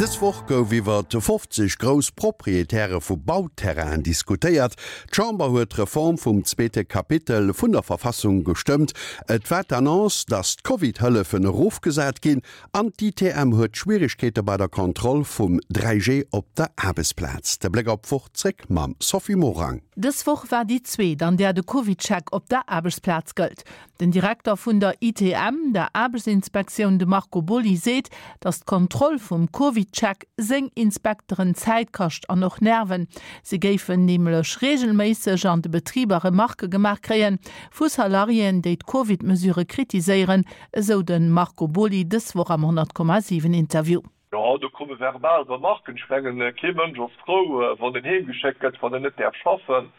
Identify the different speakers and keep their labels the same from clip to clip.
Speaker 1: Dës Woch gouf iwwer 50 grouss Proprietäre vu Bauterrainen diskutéiert. D'Chamber huet d'Reform vum zweete Kapitel vun der Verfassung gestëmmt. Et war d'Annonce, datt d'Covid-Hëllefen erofgesat ginn an d'ITM huet Schwieregkeete bei der Kontroll vum 3G op der Aarbechtsplaz. De Bléck op d'Woch zréck mam Sophie Morang.
Speaker 2: Dës Woch war déi zweet, an där de CovidCheck op der Aarbechtsplaz gëllt. Den Direkter vun der ITM, der Aarbechtsinspektioun, de Marco Boly, seet, datt d'Kontroll vum CovidCheck seng Inspekteren Zäit kascht an och Nerven. Si géifen nämlech reegelméisseg an de Betriber Remarquë gemaach kréie vu Salariéen, déi d'Covid-Mesurë kritiséieren, esou de Marco Boly dës Woch am 100,7 Interview.
Speaker 3: Jo, do komme verbal Remarken. Ech mengen, kee Mënsch ass frou, wann en heemgeschéckt gëtt, wann en net däerf schaffen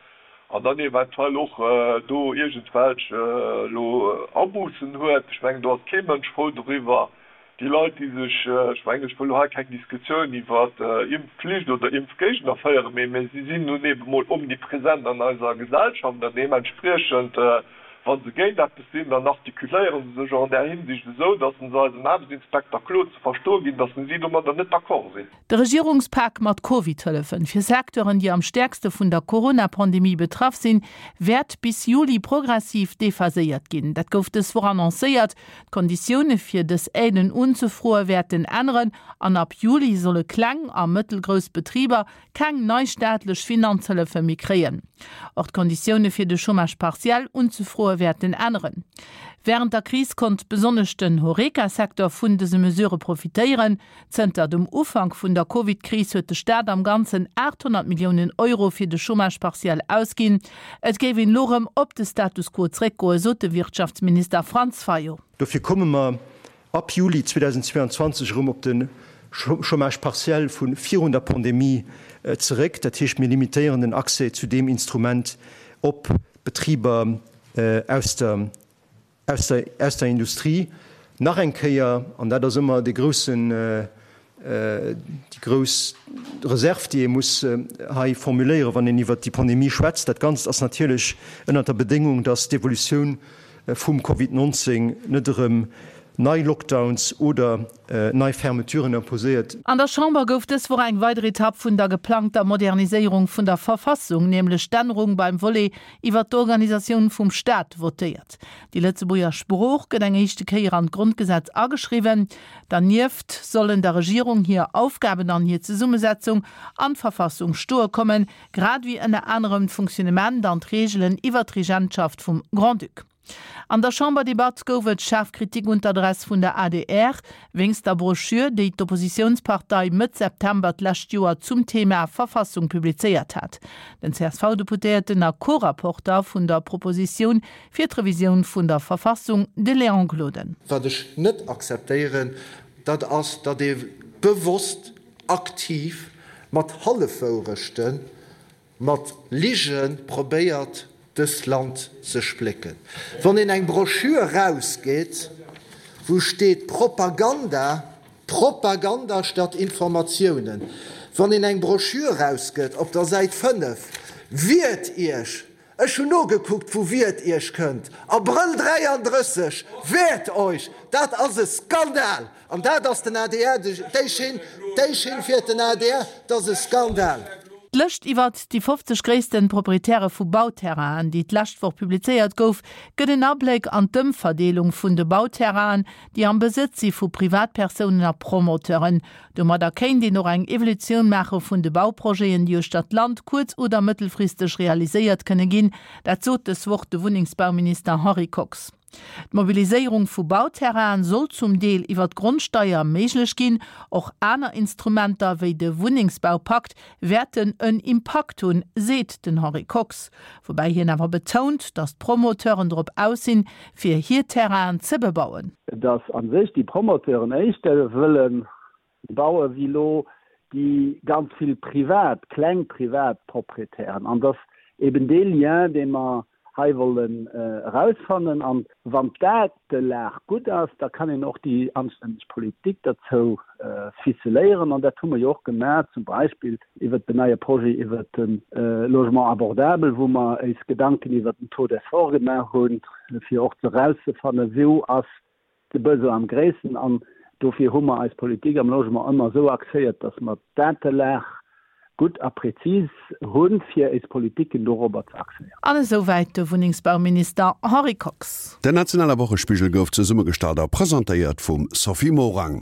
Speaker 3: an dann eventuell och do iergendwelch elo Abussen huet. Ech mengen, do ass kee Mënsch frou doriwwer. Déi Leit, déi sech, ech mengen, ech wëll elo hei keng Diskussioun iwwer Impfflicht oder Impfgéigner féieren, mee si sinn nun ebe mol omnipresent an eiser Gesellschaft an deementspriechend, Wa se géint eppes sinn, dann artikuléiere se sech och an där Hinsicht esou, datt se eisem Aarbechtsinspekter kloer ze verstoe ginn, datt si domadder net d'accord sinn.
Speaker 2: De Regierungspak mat Covid-Hëllefen fir Secteuren, déi am stäerkste vun der Corona-Pandemie betraff sinn, wäert bis Juli progressiv dephaséiert ginn. Dat gouf dës Woch annoncéiert. D'Konditioune fir dës Aiden unzefroe wäerten änneren an ab Juli solle kleng a mëttelgrouss Betriber keng nei staatlech Finanzhëllefe méi kréien. Och d'Konditioune fir de Chômage partiel unzefroe wäerten änneren. Wärend der Kris konnt besonnesch den Horeca-Secteur vun dëse Mesurë profitéieren. Zënter dem Ufank vun der Covid-Kris huet de Staat am Ganzen 800 Milliounen Euro fir de Chômage partiel ausginn. Et géif een elo rëm op de Status quo zréckgoen, sot de Wirtschaftsminister Franz Fayot.
Speaker 4: Dofir komme mer ab Juli 2022 erëm op de Chômage partiel vu virun der Pandemie zeréck. Dat heescht, mir limitéieren den Accès zu deem Instrument op Betriber aus der, aus der, aus der Industrie. Nach eng Kéier, an dat ass ëmmer dee groussen, déi grouss Reserve, déi ee muss hei formuléieren, wann een iwwert déi Pandemie schwätzt, dat Ganzt ass natierlech ënnert der Bedéngung, dass d'Evolutioun vum Covid 19 net erëm nei Lockdowns oder nei Fermeturen imposéiert.
Speaker 2: An der Chamber gouf dës Woch eng weider Etapp vun der geplangter Moderniséierung vun der Verfassung, nämlech d'Ännerung beim Volet iwwer d'Organisatioun vum Staat, votéiert. Déi Lëtzebuerger Sprooch gëtt eng éischte Kéier an d'Grondgesetz ageschriwwen. Dernieft sollen der Regierung hir Aufgaben an hir Zesummesetzung an d'Verfassung stoe kommen, grad ewéi ënner anerem d'Funktionnement an d'Reegelen iwwer d'Regentschaft vum Grand-Duc. An der Chamberdebatt gouf et schaarf Kritik un d'Adress vun der adr wéinst der Broschür, déi d'Oppositiounspartei Mëtt September d'lescht Joer zum Thema Verfassung publizéiert hat. Den CSV-Deputéierten a Co-Rapporter vun der Propositioun fir d'Revisioun vun der Verfassung, de Léon Gloden.
Speaker 5: Wat ech net akzeptéieren, dat ass, datt ee bewosst aktiv mat Hallefwourechten, mat Lige probéiert, dëst Land ze splécken. Wann een eng Broschür erausgeet, wou steet Propaganda, Propaganda statt Informatiounen, wann een eng Broschür erausgëtt op der Säit 5, Wiert Iech! Ech hunn nogekuckt, vu Wiert Iech kënnt. Abrëll 33, Wehrt euch! Dat ass e Skandal! An dat ass den adr, déi Schinn, déi Schinn fiert den adr, dat ass e Skandal!
Speaker 2: D'Lëscht iwwert déi 50 gréissten Proprietäre vu Bauterrainen, déi d'lescht Woch publizéiert gouf, gëtt en Abléck an d'Ëmverdeelung vun de Bauterrainen, déi am Besëtz si vu Privatpersounen a Promoteuren. Domadder kéint een och eng Evolutioun maache vun de Bauprojeten, déi uechter d'Land kuerz oder mëttelfristeg realiséiert kënne ginn. Dat sot dës Woch de Wunnengsbauminister Henri Kox. D'Mobiliséierung vu Bauterrainen soll zum Deel iwwer d'Grondsteier méiglech ginn. Och aner Instrumenter wéi de Wunnengsbaupakt wäerten en Impakt hunn, seet den Henri Kox. Woubäi hien awer betount, datt d'Promoteuren drop aus sinn, fir hir Terrainen ze bebauen.
Speaker 6: Datt a sech déi Promoteuren éischter wëlle baue wéi elo déi ganz vill privat, kleng privat Proprietären. An datt eben dee Lien, dee mer hei wollen erausfannen. An wann d'Datelag gutt ass, da kann een och déi anstänneg Politik derzou ficeléieren. An dat hu mer jo och gemaach, zum Beispill iwwert den neie Projet iwwert de Logement abordable, wou mer éis Gedanken iwwert den Taux d'effort gemaach hunn, fir och erauszefannen, wou ass de Besoin am gréissten. An. Dofir hu mer eis Politik am Logement ëmmer esou axéiert, dass mer d'Datelag gutt a prezis hunn, fir éis Politiken dorobber ze axéieren.
Speaker 2: An esou wäit de Wunnengsbauminister Henri Kox.
Speaker 1: Den nationale Wochespigel gouf zesummegestallt a presentéiert vum Sophie Morang.